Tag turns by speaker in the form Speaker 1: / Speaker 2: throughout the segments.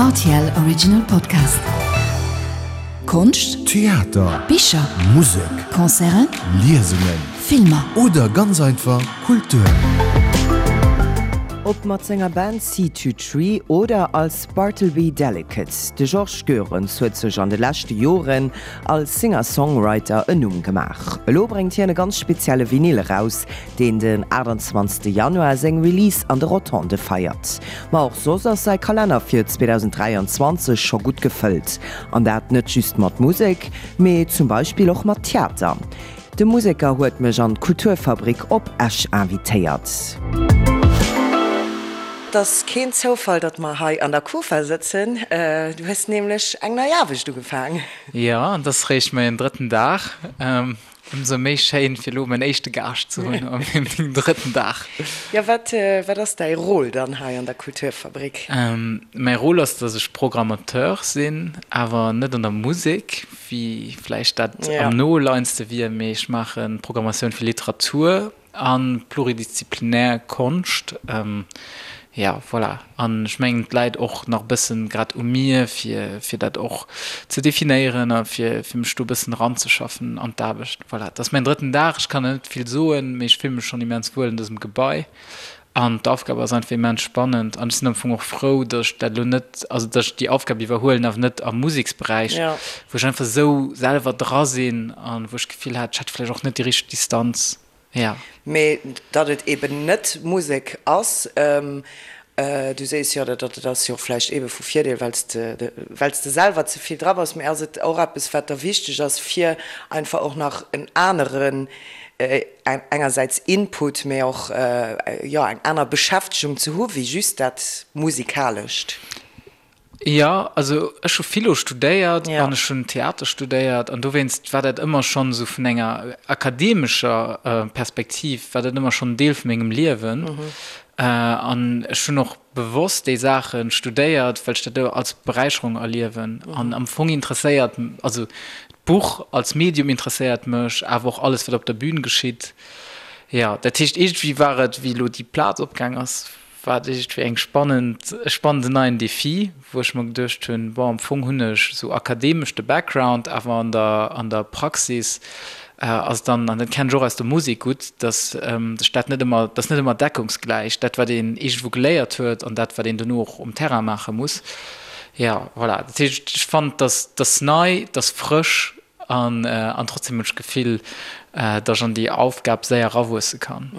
Speaker 1: Rtl Original Podcast. Konscht,
Speaker 2: Theater,
Speaker 1: Bicher,
Speaker 2: Musek,
Speaker 1: Concerten,
Speaker 2: Liesungen
Speaker 1: Filmer.
Speaker 2: oder ganz einfach Kultur.
Speaker 3: Ob mat senger Band Sea To Tree oder als Bartleby Delicate, de Georges Goerens huet sech an de leschte Joren als Singer-Songwriter en Numm gemaach. Elo bréngt hien e ganz spezielle Vinyl eraus, deen den 28 Januar seng Release an de Rotondë feiert. Ma och soss ass säi Kalenner fir 2023 scho gutt gefëllt. An dat net just mat Musek, mee zum Beispill och mat Theater. De Museker huet mech an d'Kulturfabrik op Esch invitéiert. Et ass keen Zoufall, datt mer hei an der Kufa sëtzen. Du hues nämlech eng nei Aarbecht ugefaang.
Speaker 4: Jo, an et ass réischt mäin drëtten Dag. Ëmsou méi schéin fir elo mäin éischte Gaascht ze hunn op mengem drëtten Dag.
Speaker 3: Jo, wat wat ass däi Rôle dann hei an der Kulturfabrik?
Speaker 4: Mäi Rôle ass, datt ech Programmateur sinn, awer net an der Musek, wéi vläicht dat am noleiendste wier, mee ech maache Programmatioun fir Literatur A pluridisziplinär Konscht, jo, voilà. An ech mengen, et läit och nach e bëssen grad u mir, fir, fir dat och ze definéieren a fir, fir mech do e bëssen eranzeschaffen an d'Aarbecht. Voilà, et ass mäin drëtten Dag, ech kann nach net vill soen, mee ech fille mech schonn immens wuel an dësem Gebai. An d'Aufgab ass einfach immens spannend. An ech sinn am Fong och frou, datt ech dat elo net, also datt ech déi Aufgab iwwerhuelen, awer net am Museksberäich, wou ech einfach esou selwer dra sinn an wou ech d'Gefill hat, ech hätt vläicht och net déi richteg Distanz. Ja.
Speaker 3: Mee datt et eben net Musek ass, du sees jo, dat ass jo och vläicht ebe vu Virdeel, well s de, well s de selwer ze vill dra bass. Mee ass et och eppes, wat der wichteg ass, fir einfach och nach en aneren, engersäits Input, mee och, jo, eng aner Beschäftegung ze hu wéi just dat Musikalescht?
Speaker 4: Jo, also ech hu Philo studéiert an ech hunn Theater studéiert an dowéinst war dat ëmmer schonn esou vun enger akademescher Perspektiv war dat ëmmer schonn en Deel vu mengem Liewen. An ech hunn och bewosst déi Saache studéiert, well ech dat als Beräicherung erliewen. An am Fong interesséiert, also d'Buch als Medium interesséiert mech, awer och alles wat op der Bühn geschitt. Jo, dat heescht iergendwéi war et, wéi elo déi Plaz opgaang ass, War et iergendwéi eng spannend, e spannenden neien Defi, wou ech mer geduecht hunn, bon, am Fong hunn ech esou akademesch de Background, awer an der, an der Praxis ass et dann, an dat kennen ech och aus der Musek gutt, dass sech dat net ëmmer, dat ass net ëmmer deckungsgläich, dat wat een iergendwou geléiert huet an dat wat een dono och um Terrain maache muss. Jo, voilà, dat heescht, ech fannen, dass, dass nei, dass frësch An trotzdem hunn ech d'Gefill, datt ech an déi Aufgab séier erawuesse kann.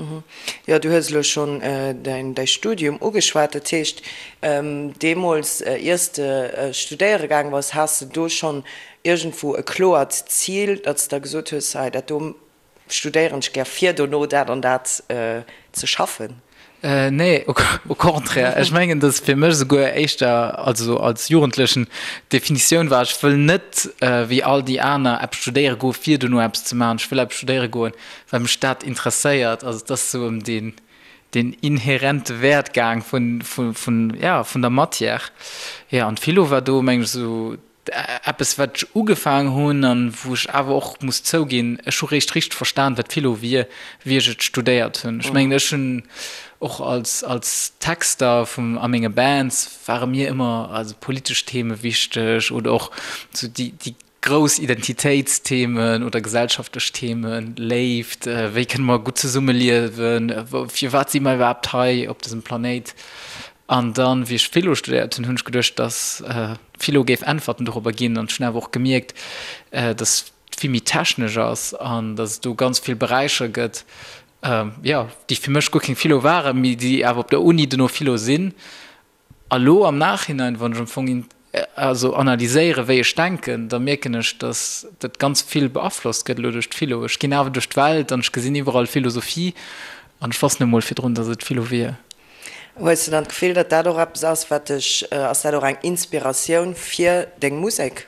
Speaker 3: Jo, du hues elo schonn däi Studium ugeschwat. Dat heescht, deemools, ier s de studéiere gaange bass, has de do schonn iergendwou e kloert Zil, datt s de da gesot hues, hei dat do Studéieren ech gär fir dono dat an dat ze schaffen?
Speaker 4: Nee, au contraire. Ech mengen, datt fir mech esouguer éischter, also als Jugendlechen, d'Definitioun war, ech wëll net wéi all déi aner eppes studéiere goen, fir dono eppes ze maachen. Ech wëll eppes studéiere goen, well mech dat interesséiert. Also et ass esou ëm deen, deen inherente Wäert gaang vun, vun, ja, vun der Matière. Jo, an d'Philo war do, mengen ech, esou Eppes wat ech ugefaang hunn an wou ech awer och muss zouginn, ech hu réischt richteg verstan wat Philo wier, wéi ech et studéiert hunn. Ech mengen ech hunn och als als Texter vum a menge Bands ware mir ëmmer also politesch Theme wichteg oder och sou déi déi grouss Identitéitsthemen oder gesellschaftlech Themen, Léift, wéi kënne mer gutt zesummeliewen, firwat si mer iwwerhaapt hei op dësem Planéit. An dann, wéi ech Philo studéiert hunn, hunn ech geduecht, dass Philo géif Äntwerten dorobber ginn. An ech hunn awer och gemierkt, dass et vill méi technesch ass an dass et do ganz vill Beräicher gëtt, jo, déi fir mech guer keng Philo waren, mee déi awer op der Uni dono Philo sinn. A lo am Nachhinein, wann ech am Fong also analyséieren, wéi ech denken, da mierken ech, dass dat ganz vill beaflosst gëtt elo duerch d'Philo. Ech ginn awer duerch d'Welt an ech gesinn iwwerall Philosophie an ech wosst net emol virdrun, dass et Philo wier.
Speaker 3: Hues de dann d'Gefill, datt dat och eppes ass, wat dech, ass dat och eng Inspiratioun fir deng Musek?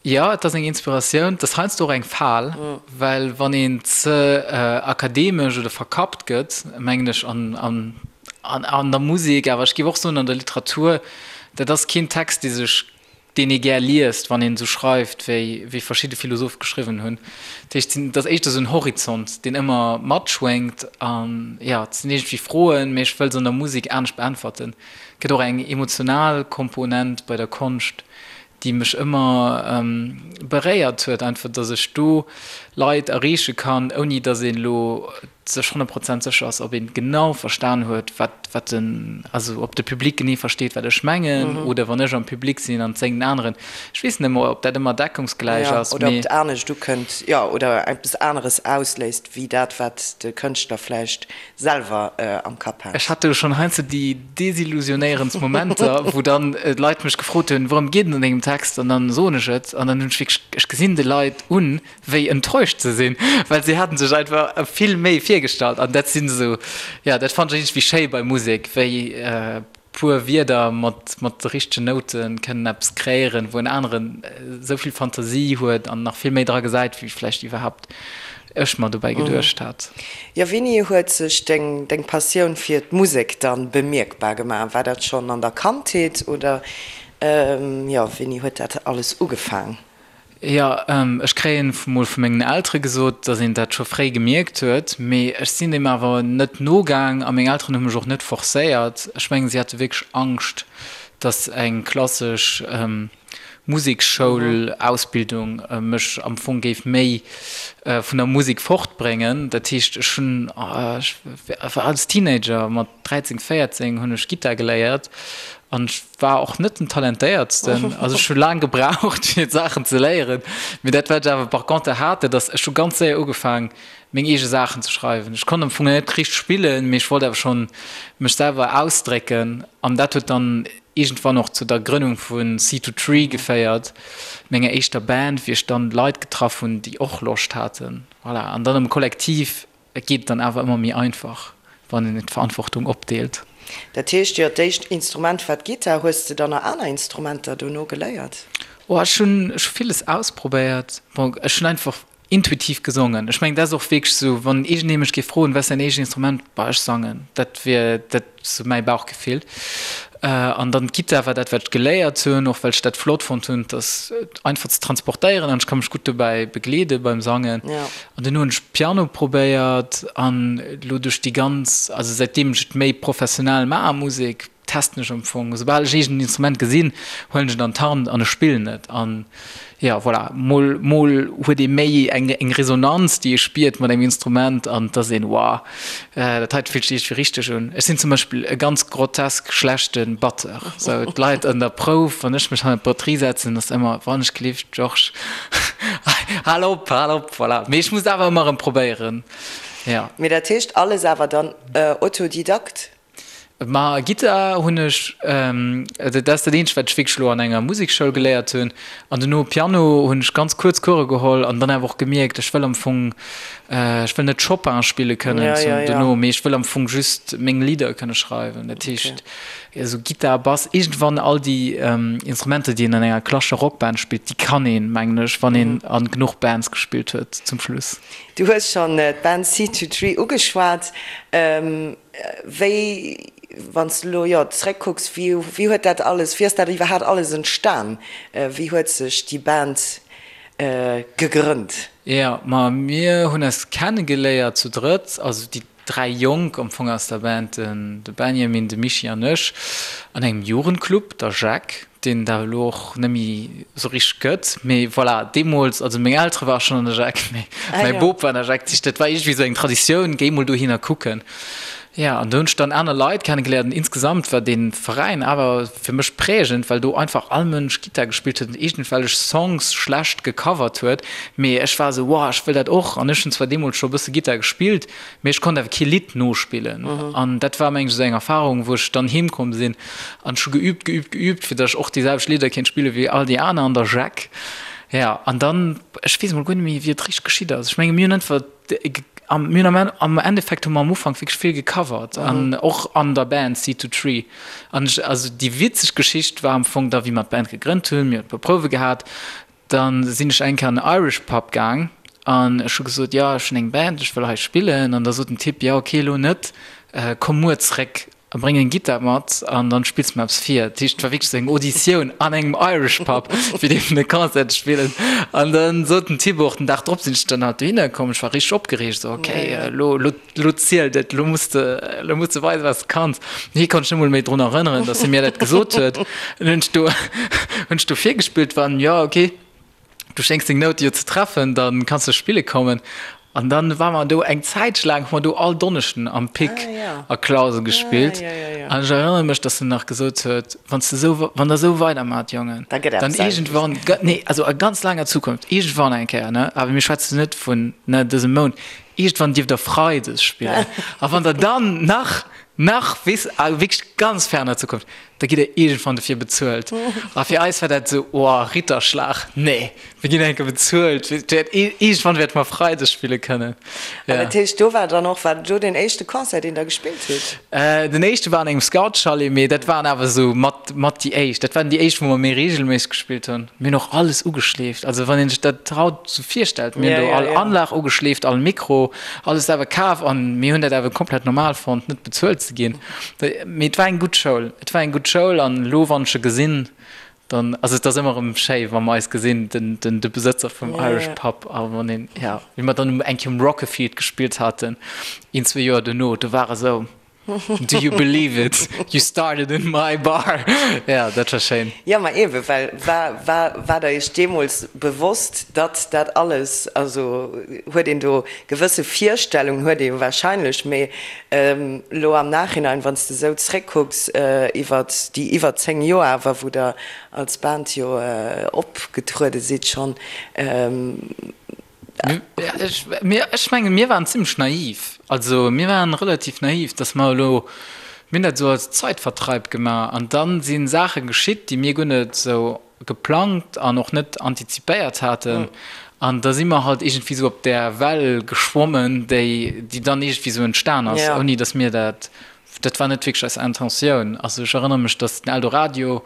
Speaker 4: Jo, et ass eng Inspiratioun. Et ass heiansdo och eng Fal, well wann een ze akademesch oder verkappt gëtt, mengen ech, an, an, an der Musek, awer ech géif och soen an der Literatur, dat ass keen Text, dee sech. deen ee gär liest, wann een esou schreift, wéi wéi verschidde Philosophe geschriwwen hunn. Dat heescht, et ass éischter esou en Horizont, deen ëmmer matschwéngt an jo, et sinn iergendwéi Froen, mee ech wëll se an der Musek anescht beäntwerten. Et gëtt och eng emotional Komponent bei der Konscht, déi mech ëmmer beréiert huet, einfach, datt ech do Leit erreeche kann, ouni datt een elo sech 100 Prozent sécher ass, ob een genau verstan huet, wat, wat den, also ob de Public genee versteet, wat ech mengen, oder wann ech am Public sinn an et séngt en aneren. Ech weess net ëmmer, ob dat ëmmer deckungsgläich
Speaker 3: Jo,
Speaker 4: ass,
Speaker 3: oder ob
Speaker 4: mee.
Speaker 3: et anescht ukënnt, jo, oder eppes aneres ausléist, wéi dat, wat de Kënschtler vläicht selwer am Kapp
Speaker 4: Ech
Speaker 3: hat.
Speaker 4: hat do schonn heiansdo déi desillusionéierendst Momenter, wou dann Leit mech gefrot hunn, Wourëm geet et an dengem Text? An dann soen ech et an dann hunn ech wierklech, ech gesinn de Leit un, wéi enttäuscht se sinn, well si haten sech einfach vill méi virgestallt an dat sinn esou, jo, dat fannen ech iergendwéi schéi bei Musek, wéi puer Wierder mat mat de richtegen Noute kënnen eppes kreéieren, wou en aneren esou vill Fantasie huet an nach vill méi dra gesäit, wéi vläicht iwwerhaapt ech mer dobäi geduecht hat.
Speaker 3: Jo, wéini huet sech deng deng Passioun fir d'Musek dann bemierkbar gemaach? War dat schonn an der Kandheet oder jo, wéini huet dat alles ugefaang?
Speaker 4: Jo, ech kréien mol vu mengen Eltere gesot, datt een dat scho fréi gemierkt huet, mee ech sinn deem awer net nogaang a meng Elteren hu mech och net forcéiert. Ech mengen, si hate wierklech Angscht, datt eng klassesch Musekschoul-Ausbildung mech am Fong géif méi vun der Musek fortbréngen. Dat heescht, ech hunn, ech war als Teenager, mat 13, 14 hunn ech Gittar geléiert an ech War och net den talentéiertsten, also ech hu laang gebraucht fir d'Saachen ze léieren, mee dat wat ech awer par contre hat, dat ass, ech hu ganz séier ugefaang meng eege Saachen ze schreiwen. Ech konnt am Fong net richteg spillen, mee ech wollt awer schonn mech selwer ausdrécken an dat huet dann iergendwann och zu der Grënnung vu Sea to Tree geféiert, menger éischter Band, wéi ech dann Leit getraff hunn, déi och Loscht haten, voilà, an dann am Kollektiv Et geet dann awer ëmmer méi einfach, wann een d'Verantwortung opdeelt.
Speaker 3: Dat heescht jo, d'éischt Instrument war d'Gittar. Hues de dann nach aner Instrumenter dono geléiert?
Speaker 4: Oh, ech hunn ech hu villes ausprobéiert. Bon, ech hunn einfach intuitiv gesongen. Ech mengen, dat ass och wierklech esou, wann iergendee mech géif froen, wat ass däin éischt Instrument? Bah, ech sangen. Dat wier dat sou mäi Bauchgefill. An dann d'Gittar war dat, wat ech geléiert hunn, och well ech dat flott fonnt hunn, et ass einfach ze transportéieren an ech ka mech gutt dobäi begleede beim Sangen. An duerno hunn ech Piano probéiert an elo duerch déi ganz, also säitdeem ech et méi professionell maache, Musek, testen ech am Fong, esoubal ech iergend en Instrument gesinn, huelen ech et an d'Hand an ech spillen et. An jo, voilà, mol, mol huet ee méi eng, eng Resonanz, déi ee spiert mat engem Instrument an et ass een, wow, dat heite fillt sech iergendwéi richteg un. Ech sinn zum Beispill e ganz grotesk schlechte Batteur. Sou, d'Leit an der Prouf, wann ech mech hannert d'Batterie setzen, ass ëmmer, Wann ech gelift, Georges, hal op, hal op, voilà. Mee ech muss et awer ëmmer erëm probéieren, jo.
Speaker 3: Mee dat heescht alles awer dann Autodidakt?
Speaker 4: Ma Gittar hunn ech, dat ass dat eenzegt wat ech wierklech elo an enger Musekschoul geléiert hunn. An duerno Piano hunn ech ganz kuerz Course geholl an dann awer och gemierkt, ech wëll am Fong, ech wëll net Chopin spille kënnen duerno, mee ech wëll am Fong just meng Lidder kënne schreiwen. Dat heescht esou Gittar, Bass, iergendwann all déi Instrumenter déi een an enger klassescher Rockband spillt, déi kann een, mengen ech, wann een a genuch Bands gespillt huet zum Schluss.
Speaker 3: Du hues schonn d'Band C23 ugeschwat. Wéi, wann s de elo, jo, zeréckkucks, wéi, wéi huet dat alles, wéi ass dat iwwerhaapt alles entstan? Wéi huet sech déi Band gegrënnt?
Speaker 4: Jo, ma mir hunn eis kennegeléiert zu drëtt, also déi 3 Jonk am Fong aus der Band, den de Benjamin, de Michi an ech, an engem Jugendclub, der Jacques. deen et awer elo och net méi esou richteg gëtt, mee voilà, deemools, also meng Eltere ware schonn an der Jacques, mee mäi Bop war an der Jacques, dat war iergendwéi esou eng Traditioun, géi mol dohinner kucken. Jo, an do hunn ech dann aner Leit kennegeléiert an insgesamt war dee Veräin awer fir mech prägend, well do einfach all Mënsch Gittar gespillt huet an iergendwellech Songs schlecht gecovert huet, mee ech war esou, wow, ech wëll dat och an ech hunn zwar deemools scho e bësse Gittar gespillt, Mee ech konnt awer kee Lidd nospillen an dat war mengen ech esou eng Erfahrung, wou ech dann heem komm sinn an ech hu geübt, geübt, geübt, fir datt ech och déi selwecht Lidder kéint spille wéi all déi aner an der Jacques. Ja, an dann, ech weess emol guer net méi, wéi et richteg geschitt ass. Ech menge mir hunn einfach, mir hunn am am Endeffekt hu mer am Ufank wierklech vill gecovert an och an der Band Seed to Tree. An ech, also déi witzeg Geschicht war am Fong da wéi mer d'Band gegrënnt hunn, mir hunn e puer Prouwe gehat, Dann sinn ech eng Kéier an en Irish Pub gaang an ech hu gesot, jo ech hunn eng Band, ech wëll hei spillen. An da sot den Typ, jo ok elo net, komm muer zréck. A bréng eng Gittar mat an dann spills de mer eppes vir. Dat heescht, et war wierklech esou eng Auditioun an engem Irish Pub, fir dierfen e Concert ze spillen. An dann sot den Thibaut och, den Dag drop sinn ech dann halt dohinner komm, ech war richteg opgereegt, esou, okay, elo, elo, elo zielt et, elo muss de, elo muss de weisen, wat s de kanns. Hie konnt sech net emol méi drun erënneren, datt hie mir dat gesot huet. An hunn ech do, hunn ech do virgespillt, waren, jo, okay. Du schéngs deng Noute jo ze treffen, da kanns de spille kommen. An dann ware mer do eng Zäitche laang, hu mer do all Donneschden am Pic a Clausen gespillt. An ech erënnere mech, dass en nach gesot huet, Wann s de esou, wann der esou weidermaacht, Jongen, dann iergendwann, nee, also a ganz laanger Zukunft, iergendwann eng Kéier, ne, awer mir schwätzen net vun, ne, dësem Mount, iergendwann dierft der freides spillen. A wann der dann nach, nach, weess, a wierklech ganz ferner Zukunft, Da gitt der iergendwann dofir bezuelt. A fir eis war dat esou, oh, Ritterschlag, nee, mir ginn eng Kéier bezuelt, iergendwann wäerte mer Freides spille kënnen.
Speaker 3: An dat heescht, do war dann och, war do deen éischte Concert, deen Der gespillt hutt?
Speaker 4: Den éischte war an engem Scoutschalet, mee dat waren awer esou mat, mat déi éischt. Dat waren déi éischt, wou mer méi reegelméisseg gespillt hunn. Mir hunn och alles ugeschleeft. Also wann een sech dat haut esou virstellt, mir hunn do all Anlag ugeschleeft, all Mikro, alles awer kaf an mir hunn dat awer komplett normal fonnt, net bezuelt ze ginn. Mee et war eng gutt Schoul. Et war eng gutt Schoul an elo, wann ech e gesinn, dann, also et ass ëmmer erëm schéi, wa mer eis gesinn, den, den, de Besëtzer vum Irish Pub a wann een, ja, wéi mer dann eng Kéier um Rockefield gespillt haten, een, zwee Joer duerno, do war e sou, Do you believe it? You started in my bar. Ja, dat war schéin.
Speaker 3: Jo, ma eebe well, war, war, war der Iech deemools bewosst, datt dat alles, also huet een do gewësse Virstellungen, huet ee jo wahrscheinlech, mee Elo am Nachhinein, wann s de esou zréckkucks iwwer déi iwwer 10 Joer awer, wou der als Band jo opgetruede sidd schonn.
Speaker 4: Ech mengen, mir waren zimlech naiv. Also mir waren relativ naiv, datt mer elo, mir hunn dat esou als Zeitvertreib gemaach an da si Saache geschitt, déi mir guer net esou geplangt an och net antizipéiert haten. An da si mer halt iergendwéi esou op där Well geschwommen, déi, déi dann iergendwéi esou entstan ass, ouni datt mir dat, dat war net wierklech eis Intentioun. Also ech erënnere mech, datt den Eldoradio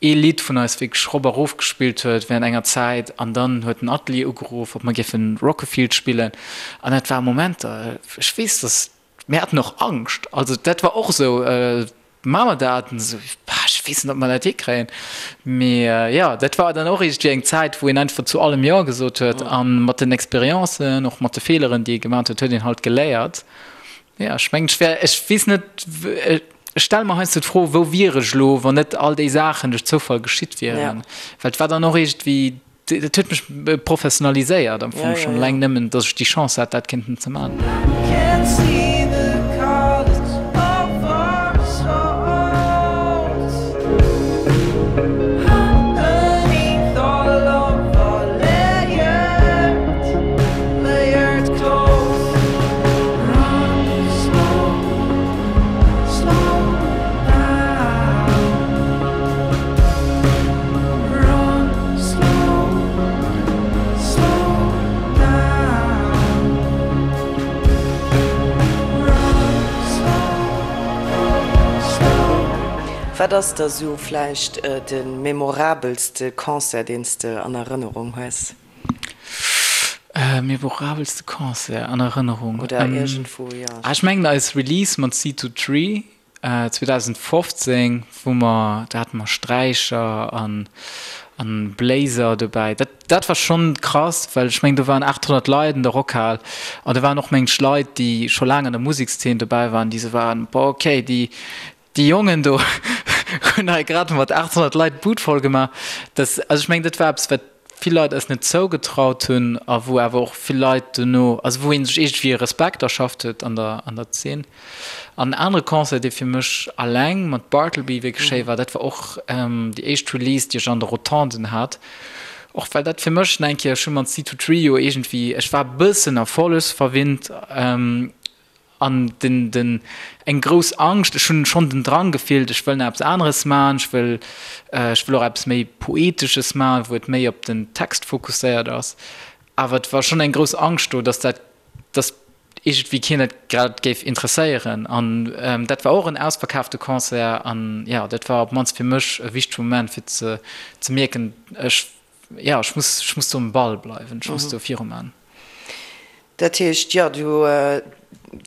Speaker 4: ee Lidd vun eis wierklech rop a rof gespillt huet während enger Zäit an dann huet den Atelier ugeruff, ob mer géifen Rockefield spillen. An dat war Momenter, ech weess, datt Mir haten och Angscht, also dat war och esou, maache mer dat? An esou, ech weess net, ob mer dat hikréien. Mee jo, dat war dann och iergendwéi eng Zäit, wou een einfach zu allem Jo gesot huet. A mat den Expériencen, och mat de Feeleren, déi ee gemaach huet, huet een halt geléiert. Jo, ech mengen, ech wär, ech weess net, ech stelle mer heiansdo d'Fro, wou wier ech elo, wann net all déi Saachen duerch Zoufall geschitt wieren? Well et war dann och iergendwéi Dat huet mech professionaliséiert am Fong schonn eleng nëmmen, datt ech déi Chance hat, dat kéinten ze man.
Speaker 3: Wat ass der sou vläicht de memorabelste Concert, deen s de an Erënnerung hues?
Speaker 4: Memorabelste Concert an Erënnerung?
Speaker 3: Oder iergendwou, jo.
Speaker 4: Ech mengen eis Release mat C2Tree 2015, wou mer, do hate mer Sträicher an an Bléiser dobäi. Dat dat war schonn krass, well ech mengen do waren 800 Leit an der Rockhal an do waren och mengen ech Leit, déi scho laang an der Musekszeen dobäi waren, déi sou waren, boah okay, déi déi Jongen do hunn hei grad mat 800 Leit d'Bud voll gemaach. Dat, also ech mengen dat war eppes wat vill Leit eis net zougetraut hunn a wou awer och vill Leit duerno, also wou ee sech iergendwéi e Respekt erschafft huet an der, an der Zeen. An en anere Concert, dee fir mech alleng mat Bartleby wierklech schéi war, dat war och déi éischt Release, déi ech an de Rotonden hat. Och well dat fir mech nach eng Kéier, ech hu mat C2 Trio iergendwéi, ech war e bëssen erfollegsverwinnt, An den, den, eng grouss Angscht, ech hunn schonn den Drang gefillt, ech wëll nach eppes aneres maachen, ech wëll, ech wëll och eppes méi Poetesches maachen, wou et méi op den Text fokusséiert ass. Awer et war schonn eng grouss Angscht do, dass dat, dass iergendwéi keen dat grad géif interesséieren. An dat war och en ausverkaafte Concert an, jo, dat war op d'mannst fir mech e wichtege Moment, fir ze, ze mierken, ech, jo, ech muss, ech muss do um Ball bleiwen, ech muss do viruman.
Speaker 3: Dat heescht, jo, du,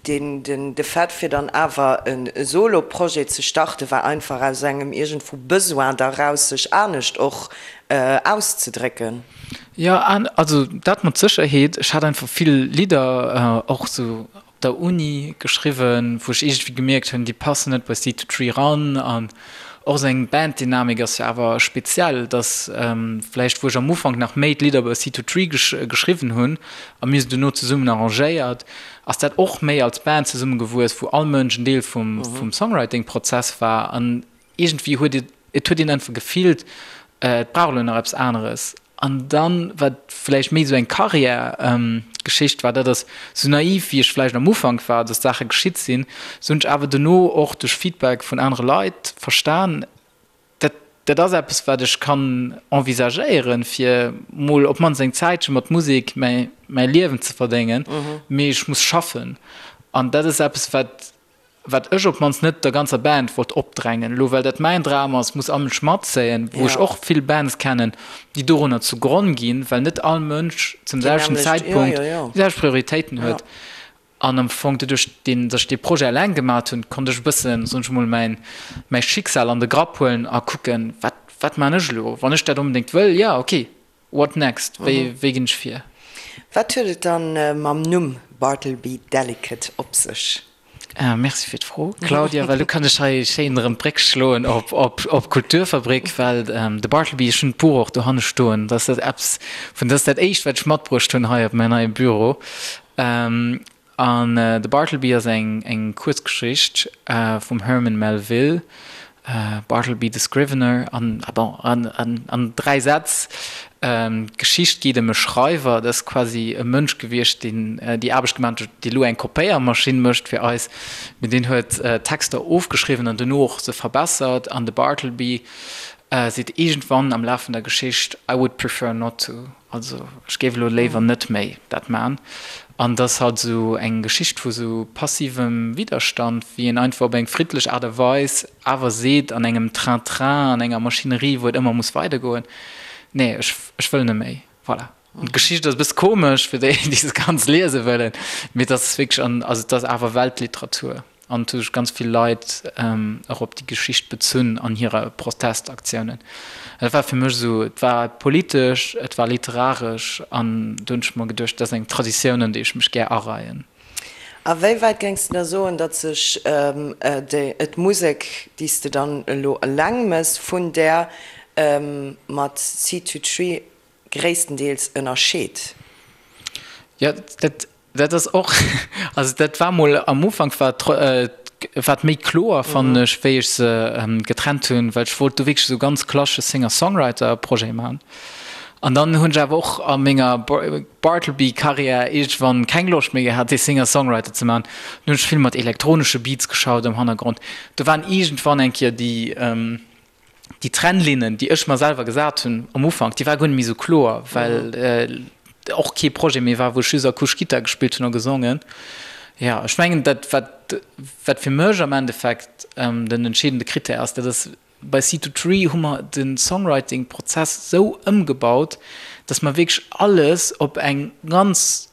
Speaker 3: deen, den, de Fait fir dann awer e Solo-Projet ze starte war einfach aus engem iergendwou Besoin da raus, sech anescht och auszedrécken.
Speaker 4: Jo, also dat mat Sécherheet. Ech hat einfach vill Lidder och sou op der Uni geschriwwen, wou ech iergendwéi gemierkt hunn, déi passen net bei Seed to Tree ran. An och esou eng Banddynamik ass jo awer speziell, dass vläicht, wou ech am Ufank nach méi d'Lidder bei Seed to Tree geschriwwen hunn a mir se duerno zesummen arrangéiert, ass dat och méi als Band zesummegewuess, wou all Mënsch en Deel vum Songwriting-Prozess war. An iergendwéi huet et, et huet een einfach gefillt, et brauch elo nach eppes aneres. An dann, wat vläicht méi esou eng Karriär-Geschicht war, dat ass, sou naiv wéi ech vläicht am Ufank war, dass Saache geschitt sinn, sou hunn ech awer dono och duerch Feedback vun anere Leit verstan, dat, dat ass eppes, wat ech kann envisagéieren, fir mol op d'mannst eng Zäitche mat Musek mäi, mäi Liewen ze verdéngen, mee ech muss schaffen. An dat ass eppes, wat wat ech op d'mannst net der ganzer Band wollt opdrängen, elo well dat mäin Dram ass, muss all Mënsch matzéien, wou ech och vill Bands kennen, déi dorunner zu Gronn ginn, well net all Mënsch zum selwechten Zäitpunkt déi selwecht Prioritéiten huet. An am Fong doduerch, deen, datt ech dee Projet eleng gemat hunn, konnt ech e bëssen, soen ech emol, mäin, mäi Schicksal an de Grapp huelen a kucken, wat, wat man ech elo, wann ech dat onbedéngt wëll, jo, ok, What next? Wéi wéi ginn ech vir?
Speaker 3: Wat huet et dann mam Numm Bartleby Delicate op sech?
Speaker 4: Merci fir d'Fro, Claudia, well lo kann ech hei schéin erëm d'Bréck schloen op op op d'Kulturfabrik, well de Bartleby, ech hunn d'Buch och dohanne stoen, dat ass dat eppes vun, dat ass dat éischt wat ech matbruecht hunn hei op mäin neie Büro. An de Bartleby ass eng eng Kuerzgeschicht vum Herman Melville, Bartleby the Scrivener, an bon, an an 3 Sätz, d'Geschicht geet ëm e Schreiwer, dat ass quasi e Mënsch gewiescht, deen déi Aarbecht gemaach huet, déi elo eng Kopéiermaschinn mécht fir eis, mee deen huet Texter ofgeschriwwen an duerno och se verbessert. An de Bartleby seet iergendwann am Laf vun der Geschicht, I would prefer not to. Also ech géif elo léiwer net méi dat man. An et ass halt esou eng Geschicht vu sou passivem Widderstand, wéi een einfach op eng friddlech Aart a Weis awer seet an engem Train-train, an enger Maschinerie, wou et ëmmer muss weidergoen, nee, ech, ech wëll net méi. Voilà. An d'Geschicht ass e bësse komesch fir déi, déi se ganz liese wëllen, mee et ass wierklech an, also et ass awer Weltliteratur. An et hu sech ganz vill Leit och op déi Geschicht bezunn an hire Protestaktiounen. Dat war fir mech esou, et war politesch, et war literaresch an do hunn ech mer geduecht, dat ass eng Traditioun, an déi ech mech gär areien.
Speaker 3: A wéi wäit géings de da soen, datt sech d'Musek, déi s de dann elo eleng méchs, vun där mat Seed to Tree gréisstendeels ënnerscheet?
Speaker 4: Jo, dat Dat ass och, also dat war mol am Ufank war war et méi kloer fannen ech, wéi ech se getrennt hunn, well ech wollt do wierklech esou ganz klassesche Singer-Songwriter-Projet maachen. An dann hunn ech awer och a menger Bartleby-Karriär iergendwann keng Loscht méi gehat, dee Singer-Songwriter ze maachen. Dann hunn ech vill mat elektronesche Beats geschaut am Hannergrond. Do waren iergendwann eng Kéier déi, déi Trennlinnen, déi ech mer selwer gesat hunn am Ufank, déi war guer net méi esou kloer, well och kee Projet méi war, wou ech just akustesch Gittar gespillt hunn a gesongen. Jo, ech mengen, dat wat wat fir mech am Endeffekt den entscheedende Krittär ass, dat ass, bei Seed to Tree hu mer de Songwriting-Prozess esou ëmgebaut, datt mer wierklech alles op eng ganz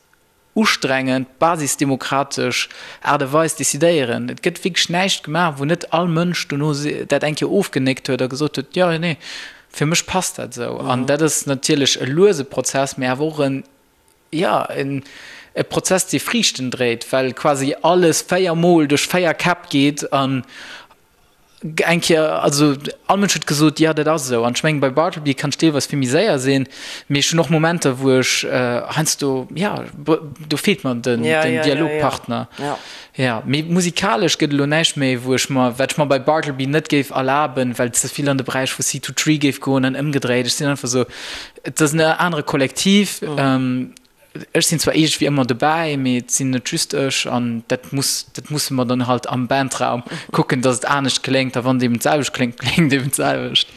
Speaker 4: ustrengend, basisdemokratesch Aart a Weis decidéieren. Et gëtt wierklech näischt gemaach, wou net all Mënsch dono dat eng Kéier ofgenéckt huet a gesot huet, jo, nee, fir mech passt dat esou. An dat ass natierlech e luese Prozess, mee awer och en, jo, e Prozess, dee Friichten dréit, well quasi alles véiermol duerch véier Käpp geet an Eng Kéier, also all Mënsch huet gesot, jo dat ass esou. An ech mengen, bei Bartleby kann ech deelweis vill méi séier sinn, mee ech hunn och Momenter, wou ech heiansdo, jo, do feelt mer den Dialogpartner. Jo, mee musikalesch gëtt elo näischt méi, wou ech mer, wat ech mer bei Bartleby net géif erlaben, well et ze vill an de Beräich vu C2 Tree géif goen an ëmgedréit. Ech sinn einfach esou, et ass en anere Kollektiv. Ech sinn zwar iergendwéi ëmmer dobäi, mee et sinn net just ech an dat muss, dat musse mer dann halt am Bandraum kucken, datt et anescht kléngt a wann et eben d'selwecht kléngt, kléngt et eben d'selwecht.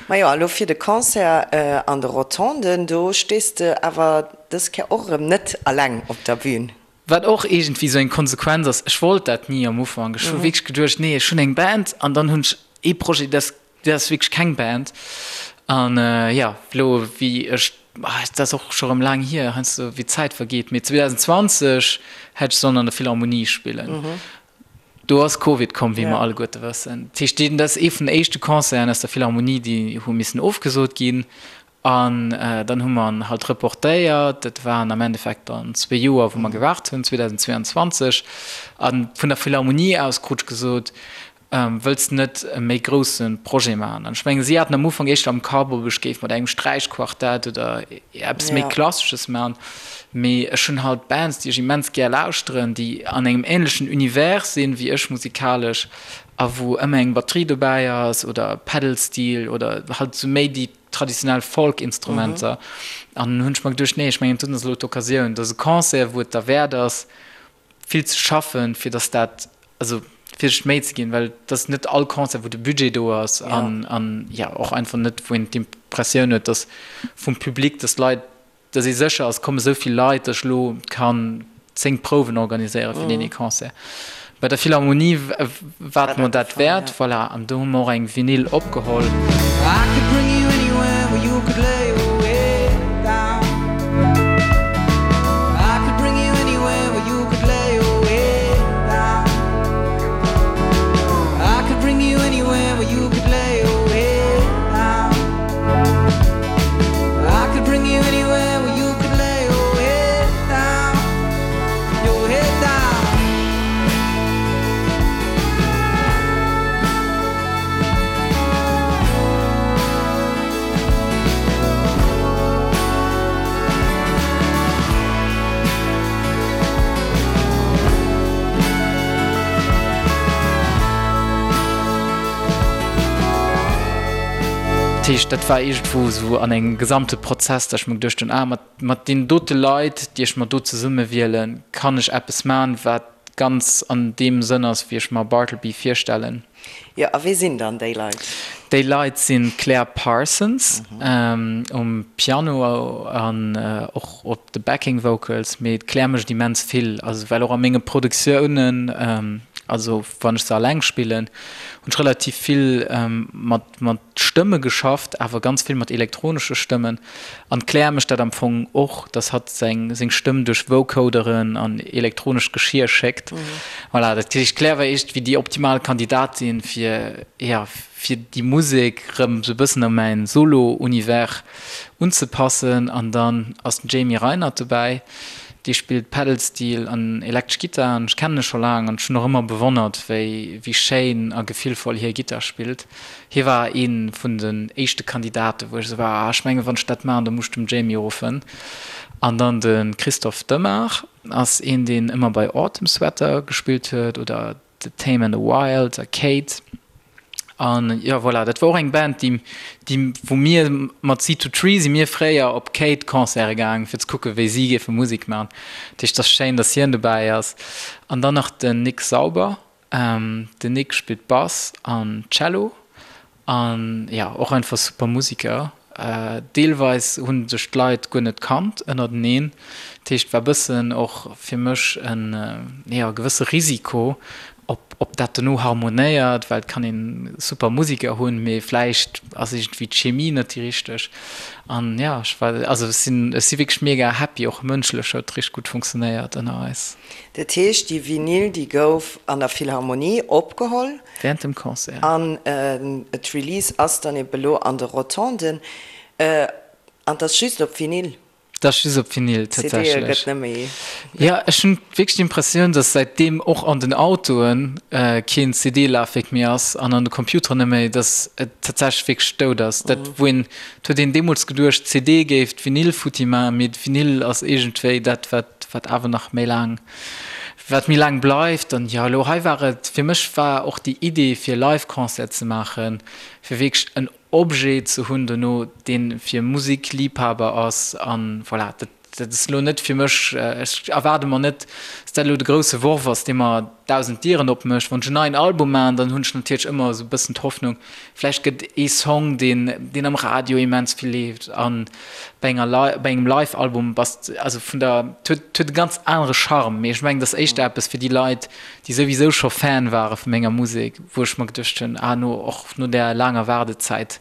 Speaker 3: Majo, a lo fir de Concert an de Rotonden, do stees de awer dës Kéier och erëm net alleng op der Bühn.
Speaker 4: Wat och iergendwéi esou eng Konsequenz ass, ech wollt dat ni am Ufank. Ech hu wierklech geduecht, nee, ech hunn eng Band an dann hunn ech ee Projet, dat ass wierklech keng Band. An jo, elo wéi ech. Dat ass och scho rëm laang hier, heiansdo wéi d'Zäit vergeet, mee 2020 hätt ech sollen an der Philharmonie spillen. Do ass Covid komm, wéi mer alleguerte wëssen. Dat heescht, dat ass ee vun den éischte Concerten aus der Philharmonie, déi hu missen ofgesot ginn. An dann hu mer en halt reportéiert. Dat waren am Endeffekt dann zwee Joer, wou mer gewaart hunn, 2022. A vun der Philharmonie aus krut ech gesot, Wëlls de net e méi grousse Projet maachen? An ech mengen, si haten am Ufank éischter am Kapp, ob ech géif mat engem Sträichquartett oder eppes méi Klassesches maachen. Mee ech hunn halt Bands, déi ech immens gär lauschteren, déi an engem änlechen Univers sinn, wéi ech musikalesch, a wou ëmmer eng Batterie dobäi ass oder Pedal Steel oder halt esou méi déi traditionell Folk-Instrumenter. An hunn ech mer geduecht, nee, ech mengen, dat ass elo d'Occasioun, dat ass e Concert, wou et derwäert ass, vill ze schaffen, fir dass dat, also fir sech d'Méi ze ginn, well et ass net all Concert, wou de Budget do ass an, an jo, och einfach net, wou een d'Impressioun huet, dass vum Public, dass d'Leit, dass ee sécher ass, et komme sou vill Leit, dass ech elo kann 10 Prouwen organiséiere fir deen ee Concert. Bei der Philharmonie war et mer dat wäert, voilà, an do hu mer och eng Vinyl opgeholl. Dat heescht, dat war iergendwou esou an engem gesamte Prozess, datt ech mer geduecht hunn, ah, mat Mat deenen dote Leit, déi ech mer do zesumme wielen, kann ech eppes man, wat ganz an deem Sënn ass, wéi ech mer Bartleby virstellen.
Speaker 3: Jo, a wie sinn dann déi Leit?
Speaker 4: Déi Leit sinn d'Claire Parsons um Piano an och op de Backing Vocals, mee d'Claire mécht immens vill, also well och a menge Produktiounen, also wann ech se alleng spillen, hunn ech relativ vill mat mat Stëmme geschafft, awer ganz vill mat elektronesche Stëmmen. An d'Claire mécht dat am Fong och, dass hatt seng seng Stëmm duerch Vocoderen an elektronescht Geschier schéckt. Voilà, dat heescht, d'Claire war iergendwéi déi optimal Kandidatin fir, jo, fir déi Musek rëm sou e bëssen a mäin Solo-Univers unzepassen. An dann ass den Jamie Reinert dobäi, dee spillt Pedal Steel an elektresch Gittar an ech kennen e scho laang an ech hunn och ëmmer bewonnert, wéi wéi schéin a gefillvoll hie Gittar spillt. Hie war ee vun den éischte Kandidaten, wou ech esou war, ah, ech mengen, wann ech dat maachen, da muss ech dem Jamie ruffen. An dann de Christophe Demart ass een, deen ëmmer bei Autumn Sweater gespillt huet oder The Tame and the Wild a Kate. An jo, voilà, dat war och eng Band, déi, déi, wou mir mat Seed to Tree si mir fréier op Kate-Concerte gaang, fir ze kucken, wéi si géife Musek maachen. Dat heescht, et ass schéin, datt hien dobäi ass. An dann nach den Nick Sauber. Den Nick spillt Bass an Cello an jo och einfach super Musiker. Deelweis hunn sech d'Leit guer net kannt ënnerteneen, dat heescht war bëssen och fir mech en jo gewësse Risiko ob ob dat dono harmonéiert, well et kann een super Musiker hunn, mee vläicht ass iergendwéi d'Chemie net déi richteg. An jo ech war also ech sinn ech si wierklech mega happy, och mënschlech huet richteg gutt funktionéiert ënner eis.
Speaker 3: Dat heescht, déi Vinyl, déi gouf an der Philharmonie opgeholl.
Speaker 4: Während dem Concert.
Speaker 3: An d'Release ass dann ebe lo an de Rotonden. An 't ass just op Vinyl?
Speaker 4: 't ass just op Vinyl,
Speaker 3: tatsächlech. CDe gëtt net méi.
Speaker 4: Jo, ech hunn wierklech d'Impressioun, dass säitdeem och an den Autoe keen CD-Lafwierk méi ass an an de Computeren net méi, dass et tatsächlech wierklech dout ass. Dat, wou een, 't huet een deemools geduecht, d'CD géif d'Vinyl futti maachen, mee d'Vinyl ass iergendwéi dat, wat wat awer nach méi laang, wat méi laang bleift. An jo, elo hei war et, fir mech war och déi Idee fir e Live-Concert ze maachen, fir wierklech en Objet ze hunn dono, dee fir Musikliebhaber ass. An voilà, dat, dat ass elo net fir mech, ech erwaarde mer net, dass dat elo de grousse Worf ass, dee mer 1.000 Dieren opmécht. Wann ech en neien Album maachen, dann hunn ech natierlech ëmmer esou e bëssen d'Hoffnung, vläicht gëtt ee Song, deen, deen am Radio immens vill leeft an bei enger Li bei engem Live-Album bass de, also vun der, et huet, et huet e ganz anere Charme. Mee ech mengen, et ass éischter eppes fir déi Leit, déi souwisou scho Fan ware vu menger Musek, wou ech mer geduecht hunn, ah no, och no där laanger Waardezäit.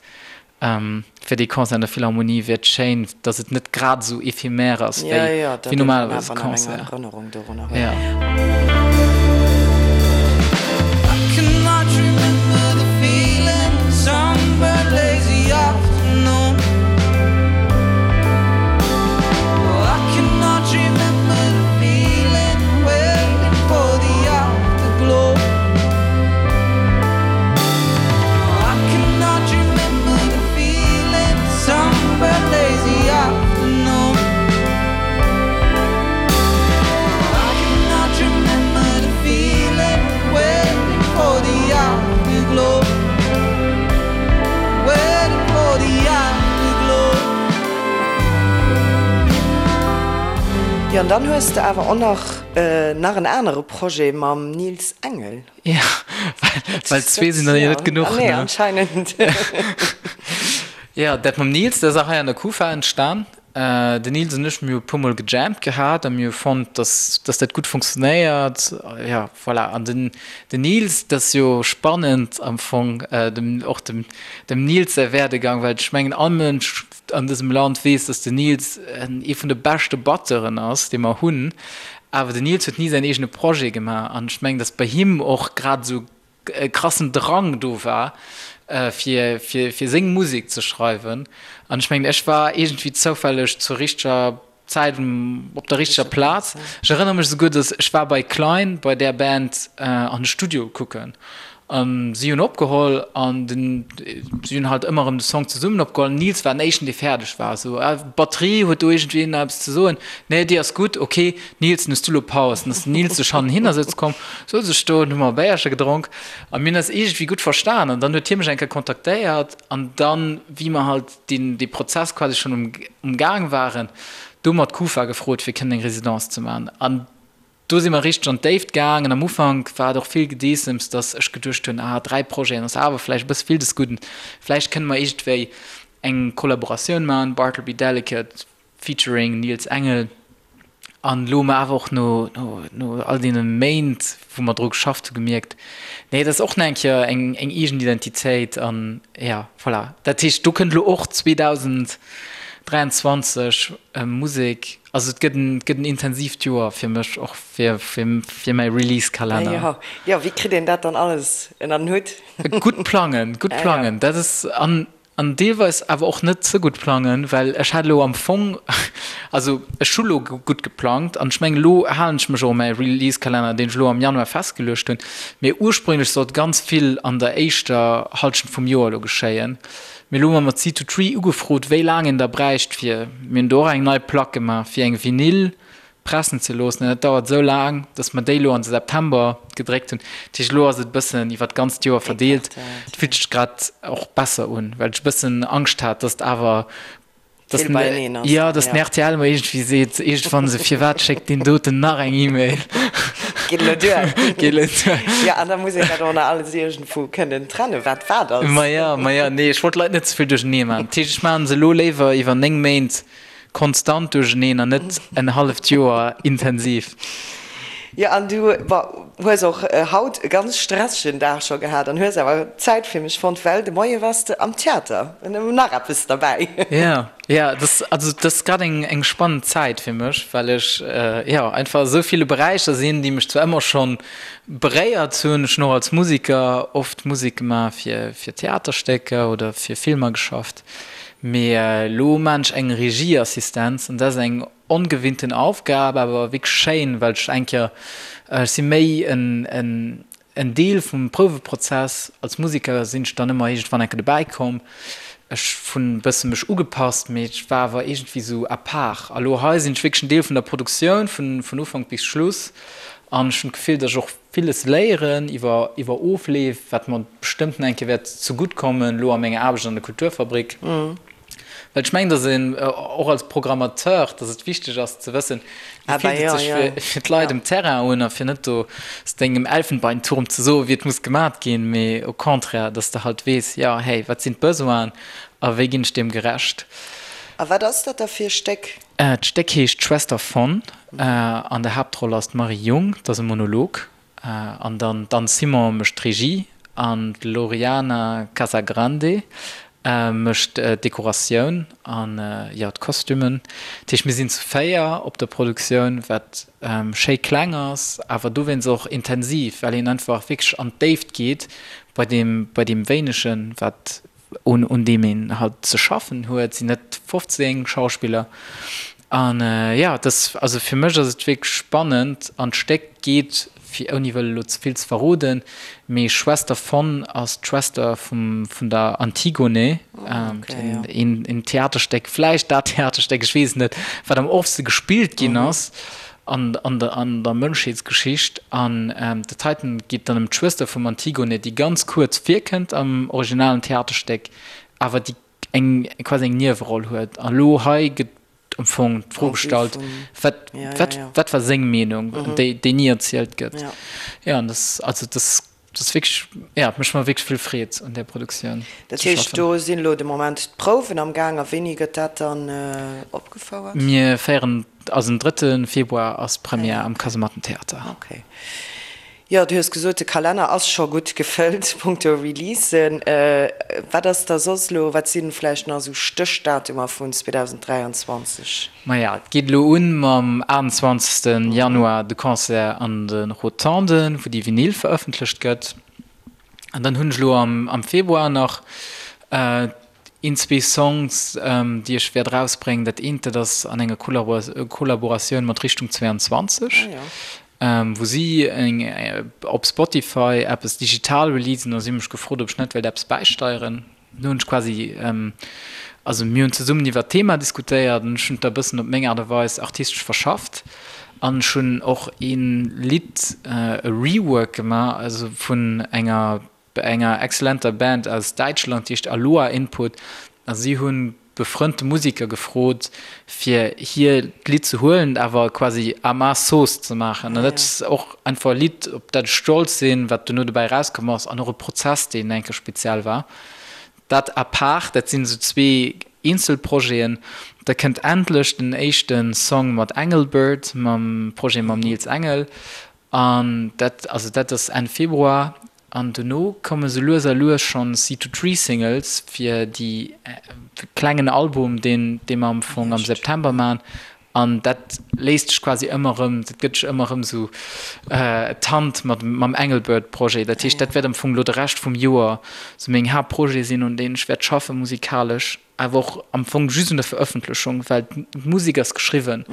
Speaker 4: Fir dee Concert an der Philharmonie wier et schéin, datt et net grad esou éphémère ass wéi normalerweis e Concert. Jo.
Speaker 3: Jo, an dann hues de awer och nach nach en anere Projet mam Nils Engel.
Speaker 4: Ja, well zwee sinn dann jo net genuch, ne?
Speaker 3: Nee, anscheinend.
Speaker 4: Ja, dat mam Nils, dat ass och hei an der Kufa entstan. Den Nils an ech, mir hu e puermol gejammt gehat a mir hu fonnt, dass, dass dat gutt funktionéiert. Ja, voilà. An den, den Nils, dat ass jo spannend am Fong, dem, och dem, dem Nils säi Werdegang, well ech mengen, all Mënsch an dësem Land weess, dass den Nils ee vun de beschte Batteuren ass, dee mer hunn. Awer den Nils huet ni säin eegene Projet gemaach an ech mengen, dass bei him och grad esou e krassen Drang do war, fir, fir, fir seng Musek ze schreiwen. An ech mengen, ech war iergendwéi zoufälleg zur richteger Zäit op der richteger Plaz. Ech erënnere mech esouguer, dass ech war bei Klein, bei där Band, an de Studio kucken. An si hunn opgeholl an den, si hunn halt ëmmer erëm de Song zesummen opgeholl. Den Nils war den éischten, dee fäerdeg war. Esou, ah, Batterie, huet do iergendween nach eppes ze soen? Nee, déi ass gutt, ok. Nils, dann hues du elo Paus. Dann ass den Nils sech hannen hinner sëtze komm, souz ech do, dann hu mer e Béierche gedronk a mir hunn eis iergendwéi gutt verstan. An dann huet hie mech eng Kéier kontaktéiert an dann, wéi mer halt deen, dee Prozess quasi schonn um, um Gaang waren, do hu mer d'Kufa gefrot, fir kënnen eng Residence ze maachen. An Do si mer richteg an d'Déift gaangen. Am Ufank war et och vill Gedeessems, dass ech geduecht hunn, ah, 3 Projeten ass awer vläicht e bësse vill des Gudden. Vläicht kënne mer iergendwéi eng Kollaboratioun maachen, Bartleby Delicate featuring Nils Engel. An elo hu mer awer och no, no, no all deene Méint, wou mer dru geschafft hu gemierkt, nee, dat ass och nach eng Kéier eng, eng eegen Identitéit. An ja, voilà. Dat heescht, do kënnt elo och 2023 Musek. Also et gëtt en, et gëtt en intensiivt Joer fir mech, och fir, fir, fir mäi Release-Kalenner.
Speaker 3: Jo, jo, wéi kritt een dat dann alles ënner den Hutt?
Speaker 4: Gutt plangen, gutt plangen, dat ass, an, an deelweis awer och net ze gutt plangen, well ech hat elo am Fong, also ech hu lo gutt geplangt an ech mengen elo halen ech mech och u mäi Release-Kalenner, deen ech elo am Januar festgeluecht hunn, mee ursprünglech sollt ganz vill an der éischter Hallschent vum Joer elo geschéien. Mee elo hu mer mat Seed to Tree ugefrot, wéi laang een da bräicht fir, mir hunn do och eng nei Plack gemaach, fir eng Vinyl pressen ze loossen. An dat dauert esou laang, datt mer déi elo an de September gedréckt hunn. Dat heescht, elo ass et e bëssen iwwer d'ganzt Joer verdeelt. Et fillt sech grad och besser un, well ech e bëssen Angscht hat, datt awer Dass
Speaker 3: Vill beieneen ass.
Speaker 4: Jo, dass den rtl mer iergendwéi seet, iergendwann esou, Firwat schéckt deen doten nach eng E-Mail?
Speaker 3: Geet elo duer.
Speaker 4: Geet elo duer.
Speaker 3: Jo, an da muss een dat och nach alles iergendwou kënnen trennen, wat wat ass.
Speaker 4: Maja, maja, nee, ech wollt d'Leit net ze vill duerchenee maachen. Dat heescht, ech maachen se elo léiwer iwwer 9 Méint konstant duercheneen an net en halleft Joer intensiv.
Speaker 3: Jo, an du, bon, hues och haut e ganz stressegen Dag scho gehat an hues awer Zäit fir mech fonnt, well de Moie wars de am Theater. Nach eppes derbäi.
Speaker 4: Jo, jo, dat, also dat ass grad eng, eng spannend Zäit fir mech, well ech, jo, einfach esou ville Beräicher sinn, déi mech zwar ëmmer schonn beréiert hunn. Ech hunn och als Musiker oft Musek gemaach fir, fir Theaterstécker oder fir Filmer geschafft, mee elo maan ech eng Regieassistenz an dat ass eng Ongewinnten Aufgab, awer wierklech schéin, well ech eng Kéier, ech si méi en en Deel vum Prouweprozess. Als Museker sinn ech dann ëmmer iergendwann eng Kéier dobäi komm. Ech hunn e bësse mech ugepasst, mee ech war awer iergendwéi sou à part. A lo hei sinn ech wierklech en Deel vun der Produktioun, vun vun Ufank bis Schluss. An ech hunn d'Gefill, datt ech och villes léieren iwwer iwwer Ofleef, wat mer bestëmmt nach eng Kéier wäert zegutt kommen, lo a menger Aarbecht an der Kulturfabrik. Well ech mengen, dass een och als Programmateur, dass et wichteg ass ze wëssen, wéi fillt et sech fir d'Leit um Terrain un a fir net do aus dengem Elfenbeinturm ze soen, wéi et muss gemat ginn, mee au contraire, dass de halt weess, jo, hey, wat sinn d'Besoinen a wéi ginn ech deem gerecht.
Speaker 3: A wat ass dat da fir e Stéck?
Speaker 4: D'Stéck heescht Schwester von. An der Haaptroll ass d'Marie Jung, dat ass e Monolog. An dann d'Anne Simon mécht d'Regie an d'Loriana Casagrande. Mécht d'Dekoratioun an, jo, d'Kostümen. Dat heescht, mir sinn zu 4 op der Produktioun, wat schéi kleng ass, awer dowéinst och intensiv, well een einfach wierklech an d'Déift geet bei deem, bei deem Wéinegen, wat, un, un deem een halt ze schaffen huet. Et sinn net 15 Schauspiller. An, jo, et ass, also fir mech ass et wierklech spannend an d'Stéck geet fir ouni wëll elo ze vill ze verroden, mee Schwester von ass d'Schwester vum vun der Antigone, een een Theaterstéck, vläicht dat Theaterstéck, ech weess et net, wat am oftste gespillt ginn ass an an der an der Mënschheetsgeschicht. An dat heiten geet dann ëm d'Schwëster vum Antigone, déi ganz kuerz virkënnt am originalen Theaterstéck, awer déi eng quasi eng Nieweroll huet. A lo hei gëtt am Fong d'Fro gestallt, wat, wat, wat war seng Meenung, déi, déi ni erzielt gëtt. Ja, an das, also das, das wierklech, ja, et mécht mer wierklech vill Freed un där Produktioun
Speaker 3: Dat ze heescht, schaffen. do sinn elo de Moment d'Prouwen am Gaang a wéini gëtt dat dann opgefouert?
Speaker 4: Mir féieren, also den drëtte Februar ass d'Première am Kasemattentheater.
Speaker 3: Okay. Jo, du hues gesot, de Kalenner ass scho gutt gefëllt punkto Releasen. Wat ass da soss elo, wat si vläicht nach esou Stéchdatumer vun 2023?
Speaker 4: Maja, et geet elo un mam 28 Januar, de Concert an de Rotonden, wou déi Vinyl verëffentlecht gëtt. An dann hunn ech elo am Februar nach een, zwee Songs, déi ech wäert erausbréngen. Dat eent, dat ass an enger Kollaboratioun mat Richtung 22. Wou si eng op Spotify eppes digital releasen a si hu mech gefrot, ob ech net wéilt eppes bäisteieren. Do hunn ech quasi, also mir hunn zesummen iwwer d'Thema diskutéiert an ech hunn et da e bëssen op meng Aart a Weis artistesch verschafft an ech hunn och ee Lidd, e Rework gemaach, also vun enger enger exzellenter Band aus Däitschland, déi heescht Aloha Input a si hu befrënnte Musiker gefrot, fir hir d'Lidd ze huelen, awer quasi à ma sauce ze maachen. An dat ass och einfach e Lidd, op dat ech stolz sinn, wat dono dobäi erauskomm ass an och e Prozess, deen eng Kéier speziell war. Dat à part, dat sinn esou zwee eenzel Projeten. Da kënnt endlech den éischte Song mat Engelbert, mam Projet mam Nils Engel. An dat, also dat ass Enn Februar. An dono komme sou lues a lues schonn C2Tree Singles fir déi klengen Album, deen dee mer am Fong am September maachen. An dat léisst sech quasi ëmmer erëm, dat gëtt sech ëmmer erëm sou d'Hand mat mam Engelbert Projet. Dat heescht, dat wäert am Fong elo de Rescht vum Joer sou meng Haaptprojete sinn, un deenen ech wäert schaffe musikalesch. Awer och am Fong just un der Verëffentlechung, well d'Musek ass geschriwwen.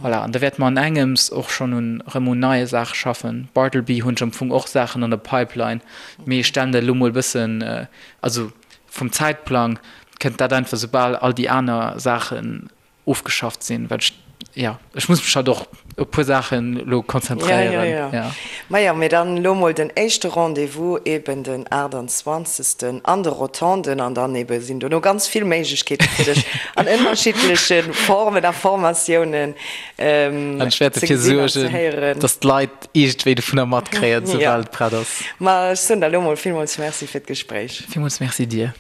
Speaker 4: Voilà, an da wäerte mer an engems och schonn un erëm un neie Saache schaffen. Bartleby hunn ech am Fong och Saachen an der Pipeline, mee ech stellen dat elo mol e bëssen, also vum Zäitplang kënnt dat einfach soubal all déi aner Saachen ofgeschafft sinn, well ech, jo, ech muss mech halt och op e puer Saachen elo konzentréieren.
Speaker 3: Ja, ja, ja. Majo, mee dann elo mol den éischte Rendez-vous eben den 28. An de Rotonden an dann ebe sinn dono ganz vill Méiglechkeete fir dech an ënnerschiddleche Formen a Formatiounen
Speaker 4: An ech wäert
Speaker 3: ze
Speaker 4: dofir
Speaker 3: gesinn an ze
Speaker 4: suergen,
Speaker 3: héieren.
Speaker 4: dass d'Leit iergendwéi dovunner matkréien, soubal et prett ass.
Speaker 3: Ma ech soen der elo mol villmools Merci fir d'Gespréich.
Speaker 4: Villmools Merci dir.